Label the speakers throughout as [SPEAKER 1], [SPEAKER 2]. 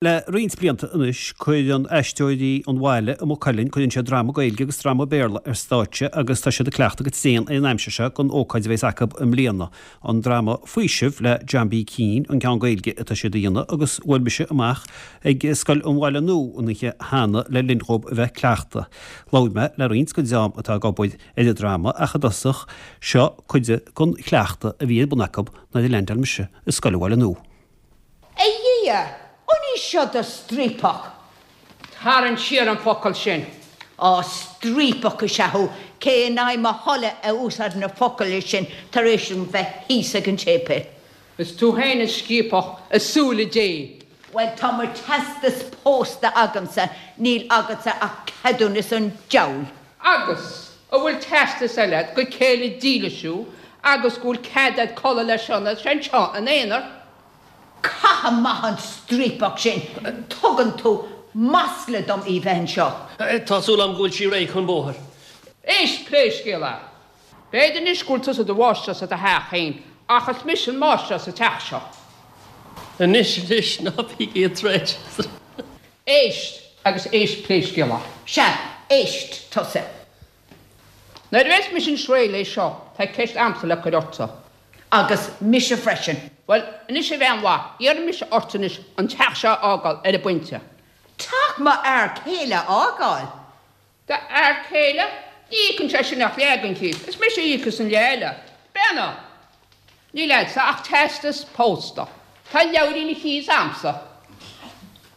[SPEAKER 1] Le roinnt blianta anois, cuireann Aisteoirí an Bhaile i Maigh Cuilinn, cuireann siad drama Gaeilge agus drama Béarla ar stáitse agus tá siad ag cleachtadh go tréan ar an aimsir seo don ócáid a bheas acu i mbliana. An drama Faoiseamh le John B. Keane an ceann Gaeilge atá siad a dhéanamh agus bhuail mise amach ag Scoil an Bhaile Nua an oíche cheana le linn dhóibh a bheith ag cleachtadh. Labhair mé le roinnt den dream atá ag obair ar an drama ach i dtosach, seo cuid den chleachtadh a bhí ar bun acu nuair a leaindeáil mise i Scoil an Bhaile Nua.
[SPEAKER 2] A Dhia, an í seo do striapach?
[SPEAKER 3] Tarraing siar an focal sin.
[SPEAKER 2] Á, striapach is ea thú, cé in aghaidh mo thola a úsáideann na focail sin tar éis dom bheith thíos ag an séipéal?
[SPEAKER 3] Is tú féin is striapach i súile Dé.
[SPEAKER 2] Bhuel, tá mo teastas pósta agamsa, níl agatsa ach ceadúnas an diabhail.
[SPEAKER 3] Agus an bhfuil teastas eile agat gur céile dílis thú agus go bhfuil cead agat codladh le Sionnach anseo ina aonar?
[SPEAKER 2] Caith amach an striapach sin! Tugann tú masla dom í bheith anseo.
[SPEAKER 4] Tá súil agam go bhfuil sí réidh chun bóthair.
[SPEAKER 3] Éist, pé scéal é. B'fhéidir anois go bhfuil tusa i do mháistreás i do theach féin, ach is mise an máistreás sa teach seo.
[SPEAKER 4] Anois, anois, ná bígí ag troid.
[SPEAKER 3] Éist, agus éist pé scéal é.
[SPEAKER 2] Sea, éist tusa.
[SPEAKER 3] Nuair a bheas mise anois réidh leis seo, tá ceist a'msa le cur ortsa.
[SPEAKER 2] Agus mise freisin.
[SPEAKER 3] Bhuel, anois a bhean mhaith, iarrfaidh mise ort anois an teach seo a fhágáil ar an bpointe.
[SPEAKER 2] Teach mo fhear céile a fhágáil?
[SPEAKER 3] Do fhear céile? Ní íocann sé sin ach leath den chíos. Is mise a íocas an leath eile. Bean, Níl a'dsa ach teastas pósta. Tá leabhairín an chíos a'msa.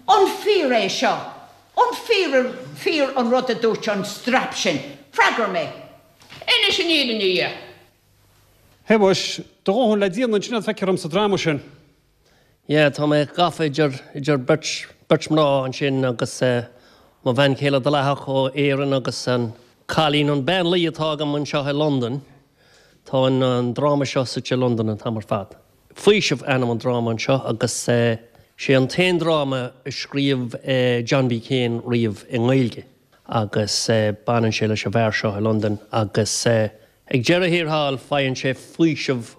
[SPEAKER 2] An fíor é seo? An fíor fíor an rud a dúirt an strap sin? Freagair mé!
[SPEAKER 3] Inis an fhírinne di.
[SPEAKER 1] Shéamuis, do dhóthain le déanamh ansin a feictear dom sa dráma sin.
[SPEAKER 4] Yeah, tá mé gafa idir, idir beirt, beirt mná ansin agus mo bhean chéile dleathach ó Éirinn agus an cailín, an bean luí atá agam anseo i Londain. Tá an, an dráma seo suite i Londain an t-am ar fad. Faoiseamh ainm an dráma anseo agus sé an t-aon dráma a scríobh John B. Keane riamh i nGaeilge agus baineann sé leis an bhfear seo i Londain agus ag deireadh thiar thall faigheann sé faoiseamh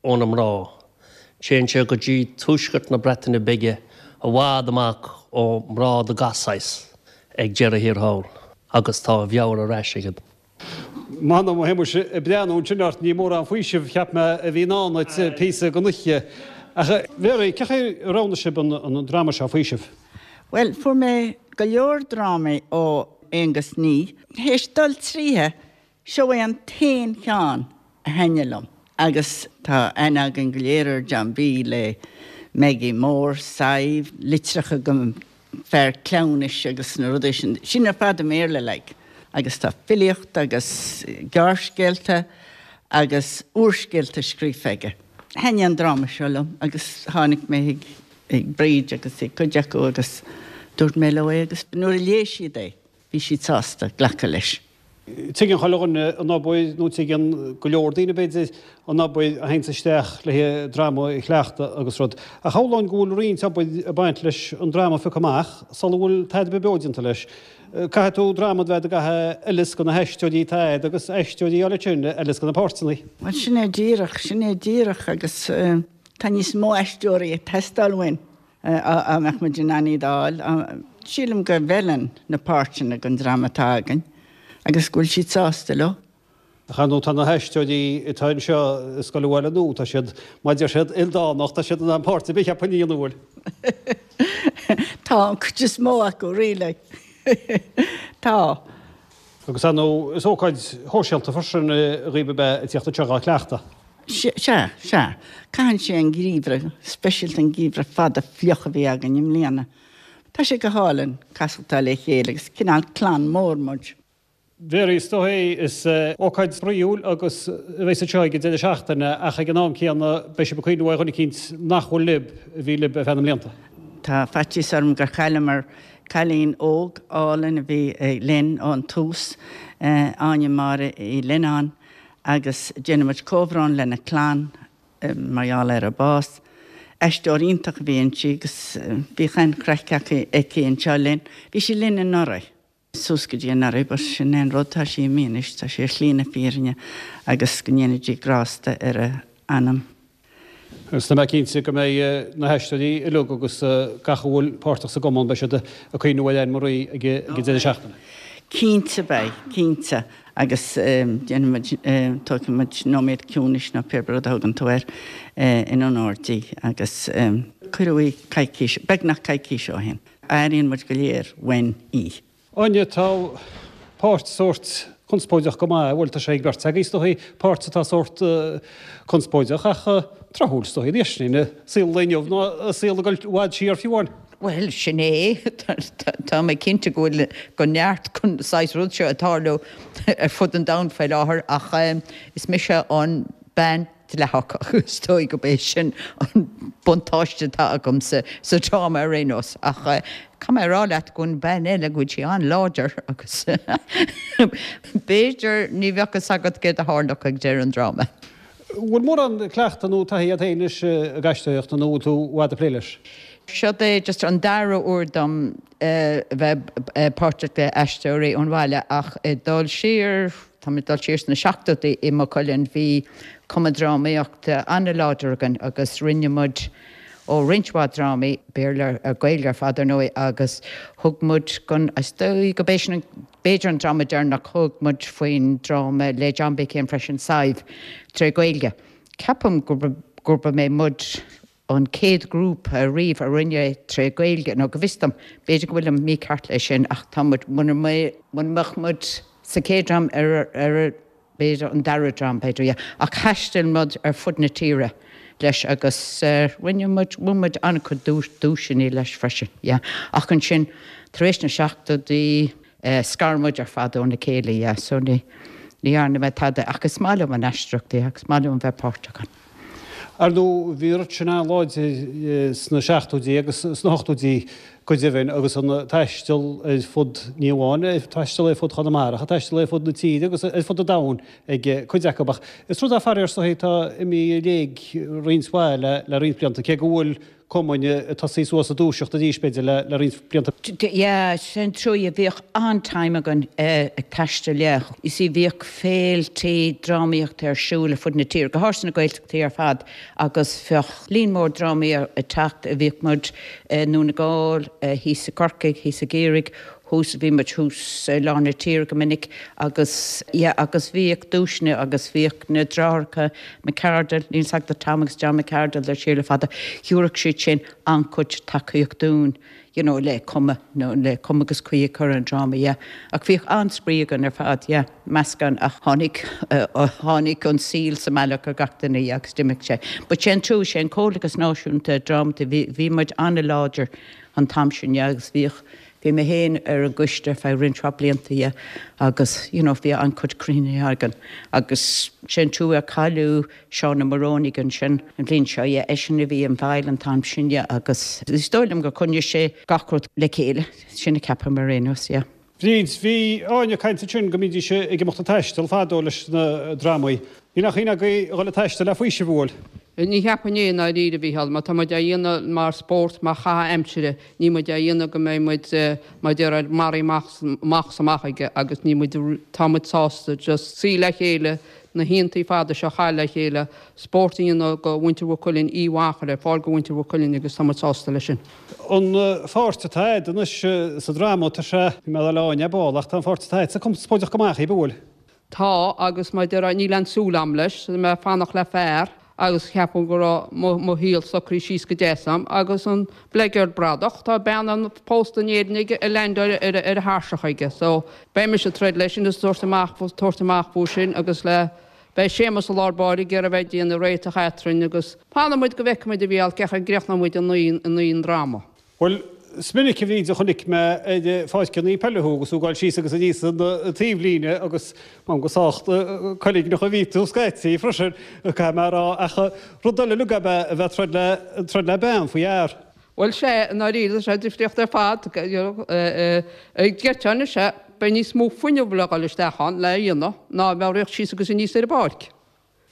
[SPEAKER 4] ó na mná. Téann sé go dtí tuaisceart na Breataine Bige i bhfad amach ó mná de gach saghas ag deireadh thiar thall agus tá a mheabhair ar ais aige.
[SPEAKER 1] M'anam, a Shéamuis, ag breathnú ansin ort, ní mórán faoisimh, cheap mé, a bhí i ndán duit píosa den oíche. Ach, a Mhary, cén chaoi a roghnaigh sibh an dráma seo, Faoiseamh?
[SPEAKER 5] Bhuel, fuair mé go leor drámaí ó Aengus Ní. Théis dul tríothu, seo é an t-aon cheann a thaitnigh liom. Agus tá aithne againn go léir ar John B. le Maggie Mór, Sadhbh, litreacha go fear cleamhnais agus na rudaí sin, sin ar fad i mBéarla like. Agus tá filíocht agus gearrscéalta agus úrscéalta scríofa aige. Thaitnigh an dráma seo liom agus tháinig mé chuig Bríd agus chuig cuid acu agus dúirt mé leo é agus nuair a léigh siad é bhí siad sásta glacadh leis.
[SPEAKER 1] Tuigeann chuile dhuine an obair, nó tuigeann go leor daoine b'fhéidir, an obair a théanns isteach le haghaidh dráma a chleachtadh agus rud. Ach shamhlóinn go bhfuil roinnt obair ag baint leis an dráma a phiocadh amach sula bhfuil tada ar bith beo déanta leis. Caithfidh tú dráma a bheith ag a fheileas do na haisteoirí atá agat agus aisteoirí a fháil ansin a fheileas do na páirteanna.
[SPEAKER 5] Bhuel sin é díreach, sin é díreach agus tá níos mó aisteoirí ag teastáil uainn. Dá mbeadh muid in ann iad a fháil, sílim go bhfeileann na páirteanna don dream atá againn agus go bhfuil siad sásta leo.
[SPEAKER 1] Ach ar ndóigh tá na haisteoirí atá anseo i Scoil an Bhaile Nua, tá siad, mar a deir siad, ildánach, tá siad in ann páirt ar bith a cheapadh a dhéanamh, an bhfuil?
[SPEAKER 5] Tá, an chuid is mó acu, really. Tá.
[SPEAKER 1] Agus ar ndóigh is ócáid shóisialta freisin dhaoibh ab ea a tíocht anseo dhá cleachtadh.
[SPEAKER 5] Sea, sea. Caitheann sé an geimhreadh, speisialta an geimhreadh fada fliuch a bhí againn i mbliana. Tá sé go hálainn casachtáil le chéile agus cineál clann mór muid.
[SPEAKER 1] Mary, is dóigh, is ócáid spraíúil agus a bheas anseo ag an deireadh seachtaine ach ag an am céanna beidh sibh ag cuimhniú ar dhuine eicínt nach bhfuil libh, a bhí libh ar feadh na mblianta.
[SPEAKER 5] Tá faitíos orm gur chailleamar cailín óg álainn a bhí linn ón tús, Áine Máire Uí Lionnáin, agus déanann muid comhbhrón lena clann mar gheall ar a bás. Aisteoir iontach a bhí inti agus bhíodh an-chraic aici anseo linn. Bhí sí linn anuraidh. suas go dtí anuraidh but sin é an rud, tá sí imithe anois, tá sí ar shlí na fírinne agus go ndéana Dia grásta ar a anam.
[SPEAKER 1] Agus tá mé cinnte go mbeidh na haisteoirí uilig agus gach a bhfuil páirteach sa gcumann, beidh siad ag cuimhniú ar Anne Marie ag an deireadh seachtaine.
[SPEAKER 5] Cinnte beidh, cinnte. Agus déanfaidh muid, tógfaidh muid nóiméad ciúnais nó pé rud a thugann tú air in onóir di agus cuireadh í coicís, beagnach coicís ó shin. Airíonn muid go léir uainn í.
[SPEAKER 1] Áine, tá páirt sórt conspóideach go maith, bhuel tá sé ag beirt agaibh is dóichí, páirt atá sórt conspóideach ach tráthúil is dóichí anois, i saol an lae inniu ná i saol ag dul i bhfad siar fiú amháin.
[SPEAKER 2] Bhuel, sin é. Tá mé cinnte go bhfuil go neart den saghas rud seo ag tarlú ar fud an domhain faoi láthair ach is mise an bean dleathach agus is dóigh gurb é sin an buntáiste atá agamsa sa dráma ar aon nós. Ach caithfidh mé a rá leat go bhfuil an bean eile, go bhfuil sí an-láidir agus b'fhéidir ní bheadh fhios agat céard a tharlódh ag deireadh an dráma.
[SPEAKER 1] Bhfuil mórán cleachtadh nó taithí agat féin anois ag aisteoireacht nó bhfuil tú i bhfad ag plé leis?
[SPEAKER 2] Seo é just an dara huair dom a bheith páirteach le Aisteoirí ón Bhaile ach ag dul siar, tá mé ag dul siar sna seachtóidí i Maigh Cuilinn, bhí cumann drámaíochta an-láidir againn agus rinne muid ó roinnt mhaith drámaí, Béarla, Gaeilge ar fad ar ndóigh, agus thug muid gon, is dóigh go b'é sin an, b'fhéidir an dráma deireanach, thug muid faoin dráma le John B. Keane freisin, Sadhbh, tré Ghaeilge. Ceapaim gurb é muid an chéad ghrúpa riamh a rinne é tré Ghaeilge, nó go bhfios dom, b'fhéidir go bhfuilim mícheart leis sin ach tá muid, muna mbeadh muid sa chéad dream ar ar b'fhéidir an dara dream, b'fhéidir, yeah. Ach thaistil muid ar fud na tíre leis agus rinne muid, bhain muid an-chuid duaiseanna leis freisin, yeah. Ach ansin, tar éis na seachtóidí, scar muid ar fad óna chéile, yeah, so ní, ní dhearna mé tada ach is maith liom an aisteoireacht, yeah, agus is maith liom a bheith páirteach ann.
[SPEAKER 1] Ar ndóigh, bhí an rud sin an-láidir sna seachtóidí agus sna hochtóidí go deimhin agus an taisteal ar fud, ní amháin taisteal ar fud Chonamara, ach taisteal ar fud na tíre agus ar fud an domhain ag cuid acu. Ach is rud é faraor is dóichí atá imithe i léig roinnt mhaith le roinnt blianta, cé go bhfuil cumainn ag tosaí suas ag dúiseacht arís b'fhéidir le roinnt blianta.
[SPEAKER 2] Yeah, sin trua, bhíodh an-time againn ag taisteal, yeah. You see, bhíodh féiltí drámaíochta ar siúl ar fud na tíre, go háirithe sna Gaeltachtaí ar fad, agus bheadh líon mór drámaí ag teacht, bhíodh muid i nDún na nGall, thíos i gCorcaigh, thíos i gCiarraí, thuas, bhí muid thuas i lár na tíre go minic agus yeah agus bhíodh duaiseanna agus bhíodh na deartháireacha McArdle, níl 's agat Tom agus John McArdle le siar le fada, thabharfadh siad sin an-chuid tacaíocht dúinn you know le cuma nó le cuma agus caoi a chur ar an dráma yeah. Ach bhíodh an-spraoi againn ar fad yeah, meascán ach tháinig tháinig an saol sa mbealach ar gach duine yeah agus d'imigh sé. But sé an trua, sé an Comhlachas Náisiúnta Drámata, bhí bhí muid an-láidir an t-am sin yeah agus bhíodh Bhí mé féin ar an gcoiste ar feadh roinnt mhaith blianta, yeah, agus you know bhí an-chuid cruinnithe againn agus sé an trua ar cailleadh Seán Ó Morónaigh ansin an bhliain seo, yeah, eisean a bhí i bhfeighil an t-am sin, yeah, agus is dóigh liom gur choinnigh sé gach rud le chéile, sin a ceapaim ar aon nós, yeah.
[SPEAKER 1] Bríd, Bhí Áine ag caint ansin go mbídís ag imeacht ag taisteal fadó leis na drámaí. Níl aon chuimhne agaibh a dhul ag taisteal le Faoiseamh, an bhfuil?
[SPEAKER 3] Ní cheapfainn é i ndáiríre, a Mhícheáil. Má tá muid á dhéanamh mar spórt, mar chaitheamh aimsire, níl muid á dhéanamh go mbeidh muid, mar a déarfá, maraithe amach, amach is amach aige agus níl muid, tá muid sásta just suí le chéile, na hoícheantaí fada seo a chaitheamh le chéile, spórt a dhéanamh do mhuintir Mhaigh Cuilinn, oíche mhaith a chur ar fáil do mhuintir Mhaigh Cuilinn agus tá muid sásta leis sin.
[SPEAKER 1] An pháirt atá agat anois sa dráma, tá sé, bhí mé ag dul le Áine ar ball, ach tá an pháirt atá agatsa conspóideach go maith, an bhfuil?
[SPEAKER 3] Tá, agus mar a déarfá, níl aon súil a'm leis, tá mé ag fanacht le fear agus cheapfainn go raibh mo, mo shaol socraithe síos go deas a'm, agus an bleageard bradach, tá bean an pósta in Éirinn aige ag leaindeáil ar, ar a thairseach aige, so beidh mise ag troid leis sin is tabhairt amach, tabhairt amach fúthu sin agus le, beidh Séamus i lár báire ag iarraidh a bheith ag déanamh réiteach eatrainn agus fanfaidh muid go bhfeicfidh muid a Mhícheáil cén chaoi a gcríochnóidh muid an an dráma.
[SPEAKER 1] Bhuel, is minic a Bhríd a chonaic mé ar pháirceanna peile thú agus tú ag gabháil síos agus aníos an taobhlíne agus m'anam go sách coiligneach a bhí tú scaití freisin, caithfidh mé a rá, ach rud eile uilig ab ea a bheith ag troid le, troid le bean faoi fhear.
[SPEAKER 3] Bhuel, sea, i ndáiríre, tá sé difríocht ar fad, ag geiteáin is ea, beidh níos mó fuinneamh le dhul isteach ann le a dhéanamh ná a bheadh ag rith síos agus aníos ar an bpáirc.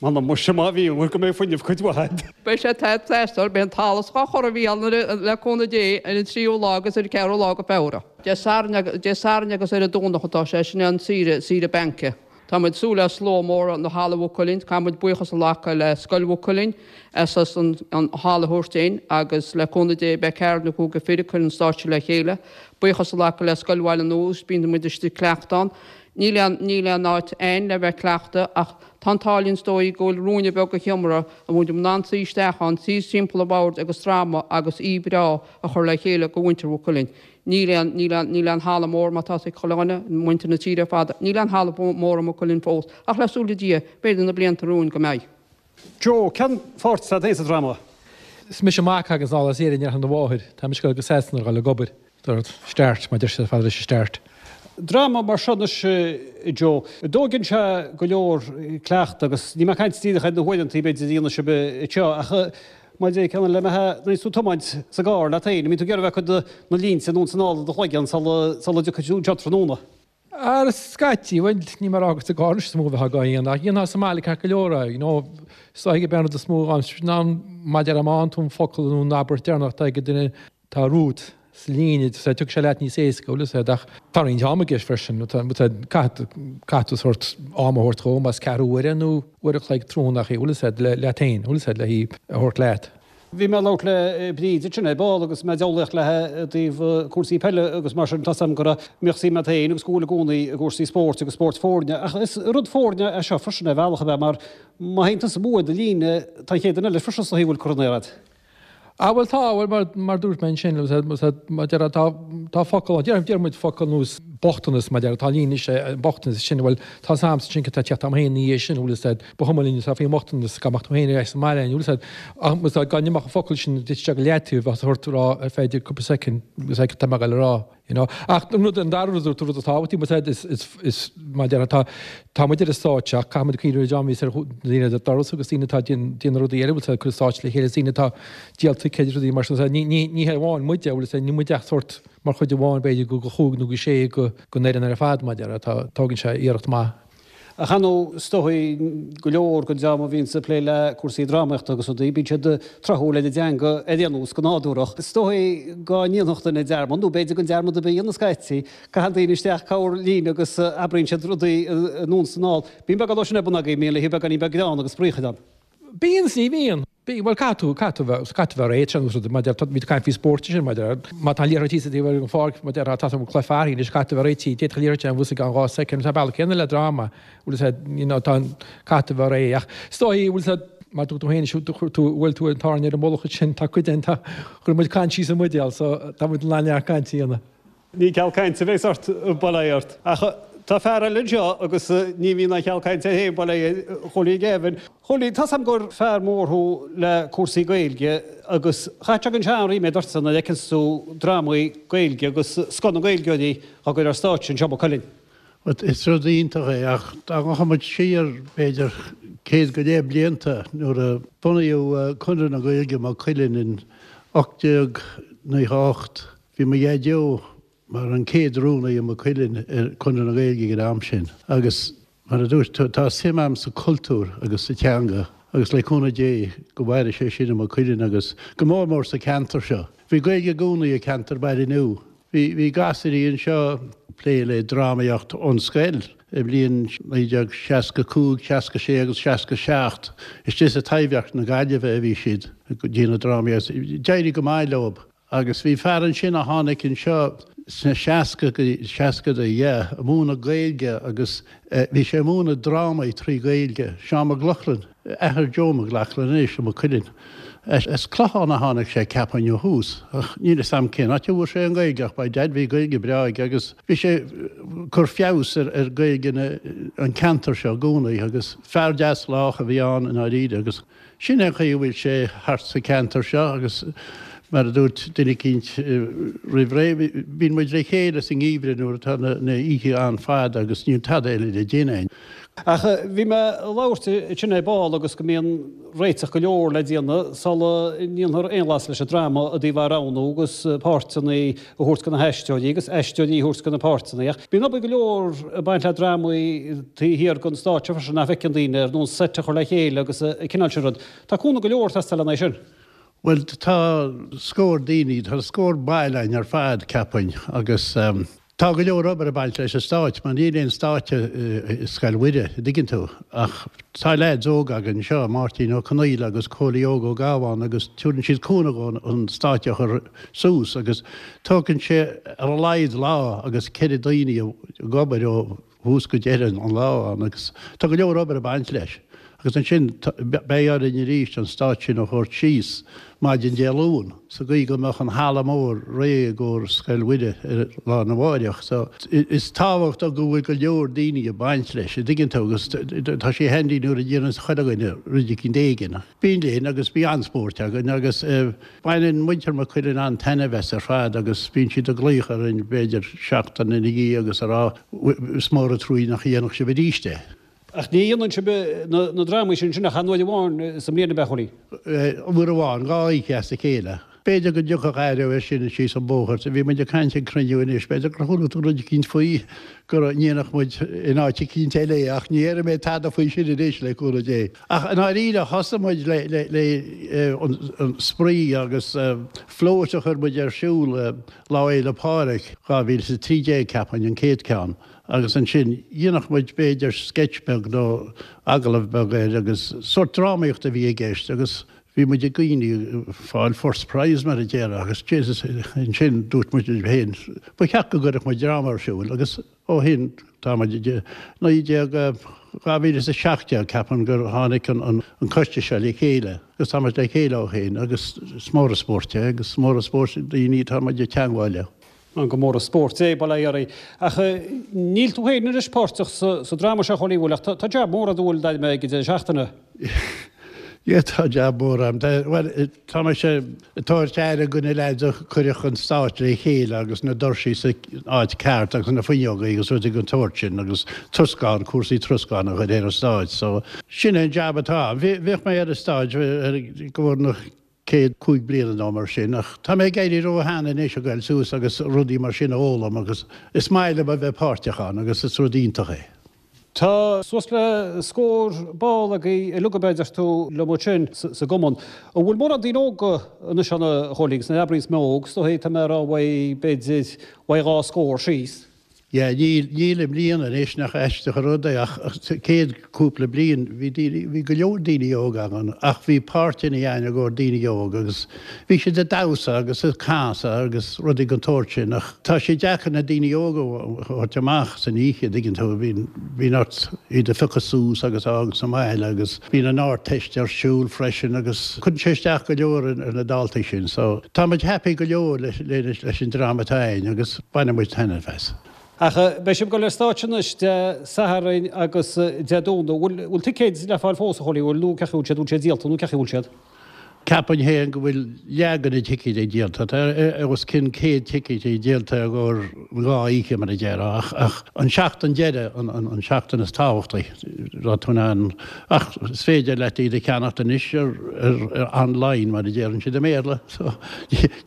[SPEAKER 1] M'anam muise má bhí, bhfuil go mbeidh fuinneamh cuid mhaith a'd.
[SPEAKER 3] Beidh sé ag teastáil, beidh an talamh dhá chur a Mhícheáil nuair le cúnamh Dé ar an tríú lá agus ar an ceathrú lá go Feabhra. Dé Sathairn Dé Sathairn agus ar an Domhnach atá sé, sin é an saoire, saoire bainc. Tá muid ag súil le slua mór ina halla Mhaigh Cuilinn. Caithfidh muid buíochas a ghlacadh le Scoil Mhaigh Cuilinn as an halla a thabhairt dúinn agus le cúnamh Dé beidh ceathrar nó cúigear fir ag cur an stáitse le chéile. Buíochas a ghlacadh le Scoil Bhaile Nua agus bíonn muid istigh ag cleachtadh ann. Níl aon níl aon áit a'inn le bheith ag cleachtadh ach tá an t-ádh linn is dóigh go bhfuil ruainne beag de sheomra a bhfuil muid in ann suí isteach ann, suí timpeall an bhoird agus dráma agus oíche bhreá a chur le chéile do mhuintir Mhaigh Cuilinn. Níl aon, níl aon, níl aon halla mór mar tá a fhios ag chuile dhuine, muintir na tíre ar fad, níl aon halla mór i Maigh Cuilinn fós, ach le súil le Dia, b'fhéidir na blianta romhainn go mbeidh.
[SPEAKER 1] Joe, Cén pháirt atá agat féin sa dráma?
[SPEAKER 6] Is mise an mac a thaganns anall as Éirinn ar shon a mháthair. Tá mise ag dul go Sasana ar dhul ag obair. Dúirt, Start, mar deir siad ar fad leis an start.
[SPEAKER 1] Dráma mar seo anois, Joe, dtóigeann sé go leor cleachta agus níl mé ag caint díreach ar na huaireanta b'fhéidir a dhéanann sibh anseo ach mar a deir ceann eile, nuair a bhíonns tú ag tiomáint sa gcarr leat féin, an mbíonn tú ag iarraidh a bheith ag cuid de na línte anonn is anall i do chloigeann sula dtiocfaidh tú anseo tráthnóna?
[SPEAKER 6] Ar scaití, bhuel, níl mé ag rá gur sa gcarr anois is mó a bheifeá á dhéanamh, ach dhéanfá sa mbaile ceart go leor é, you know, is dóigh gurb é an rud is mó ná mar a déarfá má fhaigheann tú an focal nó an abairt deireanach atá ag an duine atá romhat sa líne, so tiocfaidh sé leat níos éasca, bhfuil fhios a'd, ach tá roinnt ama i gceist freisin, caithfidh, caithfidh tú sórt am a thabhairt dhó, más ceathrú uaire nó uair a chloig tráthnóna, bhfuil fhios a'd, leat féin, bhfuil fhios a'd, le hí a thabhairt leat.
[SPEAKER 1] Bhí mé ag labhairt le Bríd ansin ar ball agus mé ag diabhlaíocht léi i dtaobh cúrsaí peile agus mar sin tá 's a'm go raibh, mbíodh suim a'd féin agus go bhfuil i gcónaí i gcúrsaí spóirt agus spóirt foirne ach is rud foirne é seo freisin ar bhealach ab ea mar má théann tusa amú ar do líne tá an chéad duine eile freisin is dóichí a bhfuil curtha in aer a'd.
[SPEAKER 6] Ah bhuel tá, bhuel mar, mar dúirt mé ansin, mar déarfá tá, tá focal, deir, deir muid focal ar nós bochtanas mar déarfá, tá líne is é bochtanas sin, bhuel tá 's a'msa ansin cad tá ag teacht a'm féin ina dhiaidh sin, bhfuil fhios a'd, ba chuma linn atá faoin mbochtanas, dá mbeadh tú féin ar ais sa mbaile, bhfuil fhios a'd, ach bhfuil fhios a'd, dá n-imeodh an focal sin duit isteach go leataobh, bheadh ort a rá ar feadh cúpla soicind, bhfuil fhios a'd cad tá mé ag dul a rá. You know. Ach an rud, an dara rud, an rud is tábhachtaí, bhfuil fhios a'd, is, is, is, mar déarfá, tá, tá muid ar an stáitse ach caithfidh muid cuimhneamh ar an dream a bhíos ar daoine ar an doras agus daoine atá ag déanamh rudaí eile, bhfuil fhios a'd, ag cur an stáitse le chéile, daoine atá ag díol ticéid agus rudaí mar sin, ní, ní, ní hé amháin muide, bhfuil fhios a'd, ní muid ach sórt mar chuid amháin b'fhéidir go, go chúig nó go sé go, den fhoireann ar fad, mar déarfá, tá, tógann sé iarracht maith.
[SPEAKER 1] Ach ar ndóigh, is dóigh, go leor den dream a bhíonns ag plé le cúrsaí drámaíochta agus rudaí, bíonn siad tráthúil ar an dteanga ar aon nós, go nádúrach. Is dóigh go ndéanfadh duine dearmad, nó b'fhéidir gan dearmad ar bith a dhéanamh scaití. Caitheann daoine isteach corr-líne agus abraíonn siad rudaí anonn is anall. Bíonn beagán dó sin ar bun agaibh, an mbíonn, le haghaidh beagáinín beag greann agus spraoi a chur ann.
[SPEAKER 6] Bíonn is ní bhíonn. Bíonn, bhuel caithfidh tú, caithfidh tú bheith, caithfidh tú bheith réidh, sin rud, mar déarfá, bhí tú ag caint faoi spóirt ansin, mar déarfá, má tá an liathróid thíos ar an pháirc, mar déarfá, tá tú ag cluiche fearthainn anois, caithfidh tú bheith réitithe, d'fhéadfadh an liathróid a bheith i gceann 2 soicind, tá an bealach céanna le dráma, bhfuil fhios a'd, you know, tá an, caithfidh tú bheith réidh, ach is dóigh, bhfuil fhios a'd, mar dúirt tú féin, chuir tú, bhuail tú an tairne ar an mullach ansin, tá cuid den, tá, chuir muid caint síos an mbuidéal, so tá muid in ann neart cainte a dhéanamh.
[SPEAKER 1] Ní ceal cainte a bheas ort, bail ó Dhia ort. Ach tá fear eile anseo agus ní bhíonn aon cheal cainte air féin, bail ó Dhia air, a Chóilí Gavin. Chóilí, tá's a'm gur fear mór thú le cúrsaí Gaeilge agus chaithfeadh sé go ndéanann sé an-ríméad ortsa nuair a fheiceanns tú drámaí Gaeilge agus scoth na nGaeilgeoirí á gcur ar stáitse anseo i Maigh Cuilinn.
[SPEAKER 7] Bhuel, is rud iontach é ach dá ngabhfadh muid siar b'fhéidir céad go leith blianta nuair a bunaíodh Conradh na Gaeilge i Maigh Cuilinn in 1898, Bhí mo dhaideo mar an chéad rúnaí i Maigh Cuilinn ar Chonradh na Gaeilge ag an am sin agus mar a dúirt tú, tá suim a'm sa chultúr agus sa teanga agus le cúnamh Dé go mhaire sé sin i Maigh Cuilinn agus go mór mór sa cheantar seo. Bhí Gaeilge i gcónaí i ceantar Baile Nua. Bhí bhí gasúirí anseo ag plé le drámaíocht ón scoil i mbliain 1965, 66 agus 67. Istigh sa Taibhdhearc na Gaillimhe a bhí siad ag déanamh drámaíocht. D'éirigh go maith leob. Agus bhí fear ansin a tháinig anseo sna seascadaí, yeah, ag múineadh Gaeilge agus bhí sé ag múineadh drámaí trí Ghaeilge, Seán Mac Lochlainn, athair Joe Mac Lochlainn anois i Maigh Cuilinn. As Clochán a tháinig sé, ceapaim, ó thús, ach níl fhios a'm cén áit a bhfuair sé an Ghaeilge ach by dad bhí Gaeilge breá aige agus bhí sé ag cur feabhas ar Ghaeilge an ceantar seo i gcónaí agus fear deas lách a bhí ann i ndáiríre agus Sin é an chaoi a bhfuil sé thart sa cheantar seo agus mar a dúirt duine eicínt roimh ré, bíonn muid le chéile sa ngeimhreadh nuair atá na oíche an-fhada agus níl tada eile le déanamh.
[SPEAKER 1] Ach bhí mé ag labhairt ansin ar ball agus go mbíonn réiteach go leor le déanamh sula ndéanfar aon bhlas leis an dráma i dtaobh a roghnú agus páirteanna a thabhairt do na haisteoirí agus aisteoirí a thabhairt do na páirteanna. Ach bíonn obair go leor ag baint le drámaí taobh thiar den stáitse freisin nach bhfeiceann daoine, ar nós seit a chur le chéile agus an cineál sin rud. Tá cúnamh go leor ag teastáil lena aghaidh sin.
[SPEAKER 7] Bhuel, tá scór daoine, tá scór baill againn ar fad, ceapaim, agus. Tá go leor obair ag baint leis an stáitse mar níl aon stáitse i Scoil Mhuire, an dtuigeann tú, ach tá leaids óga againn anseo, Máirtín Ó Conaola agus Cóilí Óg Ó Gabháin agus tabharann siad cúnamh dhúinn an stáitse a chur suas agus tógann sé ar a laghad lá agus 4 daoine ag obair ó thús go deireadh an lá ann agus tá go leor obair ag baint leis. Agus ansin beidh orainn arís an stáitse sin a thabhairt síos maidin Dé Luain sa gcaoi go mbeadh an halla mór réidh i gcomhair Scoil Mhuire ar lá arna mháireach. So is tábhachtach go bhfuil go leor daoine ag baint leis, an dtuigeann tú, agus tá sé handy nuair a dhéananns chuile dhuine rud eicínt éigin. Bíonn linn agus bíonn an-spóirt againn agus baineann muintir Maigh Cuilinn an-taitneamh as ar fad agus bíonn siad ag glaoch orainn b'fhéidir seachtain ina dhiaidh agus ag rá is mór an truaí nach ndéanfadh sibh arís é.
[SPEAKER 1] Ach ní dhéanann sibh na drámaí sin sin ach aon uair amháin sa mbliain, ab ea, a Chóilí?
[SPEAKER 7] Uair amháin, 2 oíche as a chéile. B'fhéidir go dtiocfadh athrú air sin síos an bóthar. Bhí muid ag caint ag cruinniú anois, b'fhéidir gur chuala tú rud eicínt faoi go ndéanfadh muid in áit eicínt eile é ach ní dhéarfaidh mé tada faoi sin anois, le cúnamh Dé. Ach i ndáiríre, thosaigh muid le le an spraoi agus float a chuir muid ar siúl Lá Fhéile Pádraig 2013, ceapaim, an chéad ceann. Agus ansin, dhéanfadh muid b'fhéidir sketch beag nó agallamh beag air agus sórt drámaíocht a bhí i gceist agus bhí muid ag daoine ag fáil first prize mar a déarfá agus Jesus ansin dúirt muid linn féin ba cheart go gcuirfeadh muid dráma ar siúl agus ó shin tá muid 19, 2017 ceapaim gur tháinig an coiste seo le chéile agus tá muid le chéile ó shin agus is mór an spórt é agus is mór an spórt daoine atá muid ag teangmháil leo.
[SPEAKER 1] Gur mór an spórt é, bail ó Dhia oraibh. Ach níl tú féin anois páirteach sa dráma seo, a Chóilí, bhfuil? Ach tá jab mór a'd, an bhfuil, d'aidhm ag an deireadh seachtaine.
[SPEAKER 7] Yeah, tá jab mór a'm. Bhuel, tá mise ag tabhairt aire go na leaids a chuirfeadh an stáitse le chéile agus na doirsí sa áit ceart agus na fuinneogaí agus rudaí den tsórt sin agus troscán, cúrsaí troscáin a chur ar an stáitse. So, sin é an jab atá a'm. Bhíodh mé ar an stáitse go bhfuair na chéad 5 bliana nó mar sin, ach tá mé ag éirí ró-shean anois a ghoil suas agus rudaí mar sin a fhoghlaim agus is maith liom a bheith páirteach ann agus is rud iontach é.
[SPEAKER 1] Tá suas le scór ball agaibh uilig, ab ea, deir tú liom ansin sa gcumann. An bhfuil mórán daoine óga anois ann a Chóilí, agus nuair a abraíos mé óg, is dóigh tá mé a rá uaidh b'fhéidir uaidh dhá scór síos.
[SPEAKER 7] Yeah, níl, níl i mbliana anois, nach aisteach an rud é, ach sa chéad cúpla bliain bhí daoine, bhí go leor daoine óga ann ach bhí páirteanna againn i gcomhair daoine óga agus bhí siad ag damhsa agus ag casadh agus rudaí den tsórt sin ach tá sé deacair na daoine óga a thabhairt amach san oíche, an dtuigeann tú, bíonn, bíonn ort iad a phiocadh suas agus a fhágáil sa mbaile agus bíonn an Ardteist ar siúl freisin agus cuireann sé isteach go leor ar na daltaí sin so tá muid happy go leor leis, leis an dream atá againn agus. Baineann muid taitneamh as.
[SPEAKER 1] Ach beidh sibh ag dul ar stáitse anois Dé Sathairn agus Dé Domhnaigh. Bhfuil bhfuil ticéid le fáil fós, a Chóilí? Bhfuil nó cén chaoi a bhfuil siad? Bhfuil siad díolta nó cén chaoi a bhfuil siad?
[SPEAKER 7] Ceapaim féin go bhfuil leath de na ticéid díolta. Tá os cionn 100 ticéid díolta i gcomhair an dhá oíche mar a déarfá ach ach an seachtain deiridh an an seachtain is tábhachtaí tá tú in ann ach is féidir leat iad a cheannacht anois ar ar online mar a déarann siad i mBéarla. So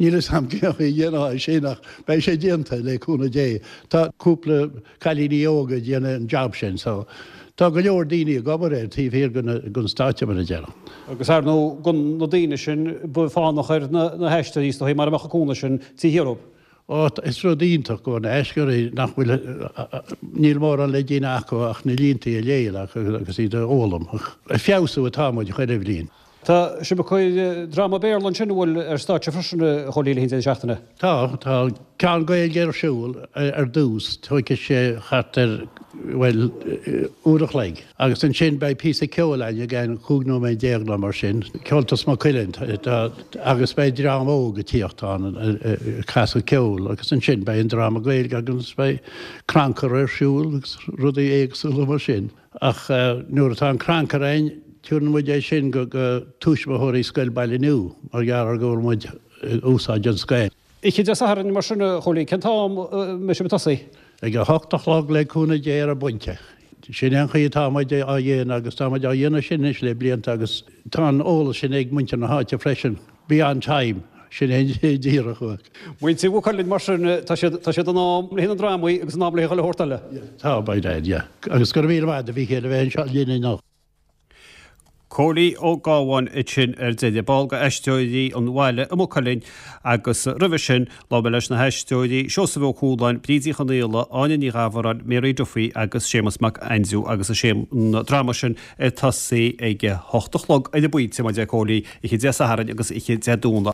[SPEAKER 7] níl fhios a'm cén chaoi a dhéanfá é sin ach beidh sé déanta le cúnamh Dé. Tá cúpla cailíní óga ag déanamh an job sin so tá go leor daoine ag obair air taobh thiar den stáitse mar a déarfá.
[SPEAKER 1] Agus ar ndóigh gan na daoine sin ba fánach ar na haisteoirí is dóigh mara mbeadh an cúnamh sin taobh thiar dhóibh.
[SPEAKER 7] Ó is rud iontach go na haisteoirí nach bhfuil níl mórán le déanamh acu ach na línte a léamh agus iad a fhoghlaim. Ag feabhsú atá muid chuile bhliain.
[SPEAKER 1] Tá sibh ag cur dráma Béarla ansin, an bhfuil, ar stáitse freisin, a Chóilí, le haghaidh an deireadh seachtaine?
[SPEAKER 7] Tá, tá ceann Gaeilge ar siúl ar dtús, tógfaidh sé thart ar, bhuel, uair a chloig. Agus ansin beidh píosa ceoil againn i gceann 15 nóiméad nó mar sin, Ceoltas Maigh Cuilinn, agus beidh dream óg ag tíocht ann ag casadh ceoil agus ansin beidh an dráma Gaeilge agus beidh crannchur ar siúl agus rudaí éagsúla mar sin. Ach nuair atá an crannchur againn, tabharann muid é sin go tuismitheoirí Scoil Baile Nua mar gheall ar go bhfuil muid ag úsáid an scoil.
[SPEAKER 1] Oíche Dé Sathairn mar sin, a Chóilí, cén t-am a mbeidh sibh ag tosaí?
[SPEAKER 7] Ag a hocht a chlog le cúnamh Dé ar an bpointe. Sin é an chaoi atá muid á dhéanamh agus tá muid á dhéanamh sin anois le blianta agus tá an eolas sin ag muintir na háite freisin. Be on time, sin é díreach uaidh.
[SPEAKER 1] Muintir Mhaigh Cuilinn mar sin, tá siad, tá siad in am le haghaidh na ndrámaí agus in am le haghaidh chuile shórt eile.
[SPEAKER 7] Tá, by dad, yeah. Agus go raibh míle maith agat a Mhíchéil a bheith anseo linn inniu.
[SPEAKER 1] Cóilí Ó Gábháin ansin ar deireadh, ball de Aisteoirí an Bhaile i Maigh Cuilinn agus roimhe sin labhair mé leis na haisteoirí Seosamh Ó Cualáin, Bríd Uí Chonaola, Áine Ní Ghabhráin, Mary Duffy agus Séamus Mac Aindriú agus is é an dráma sin ag tosaí ag a hocht a chlog ar an bpointe, mar a deir Cóilí, oíche Dé Sathairn agus oíche Dé Domhnaigh.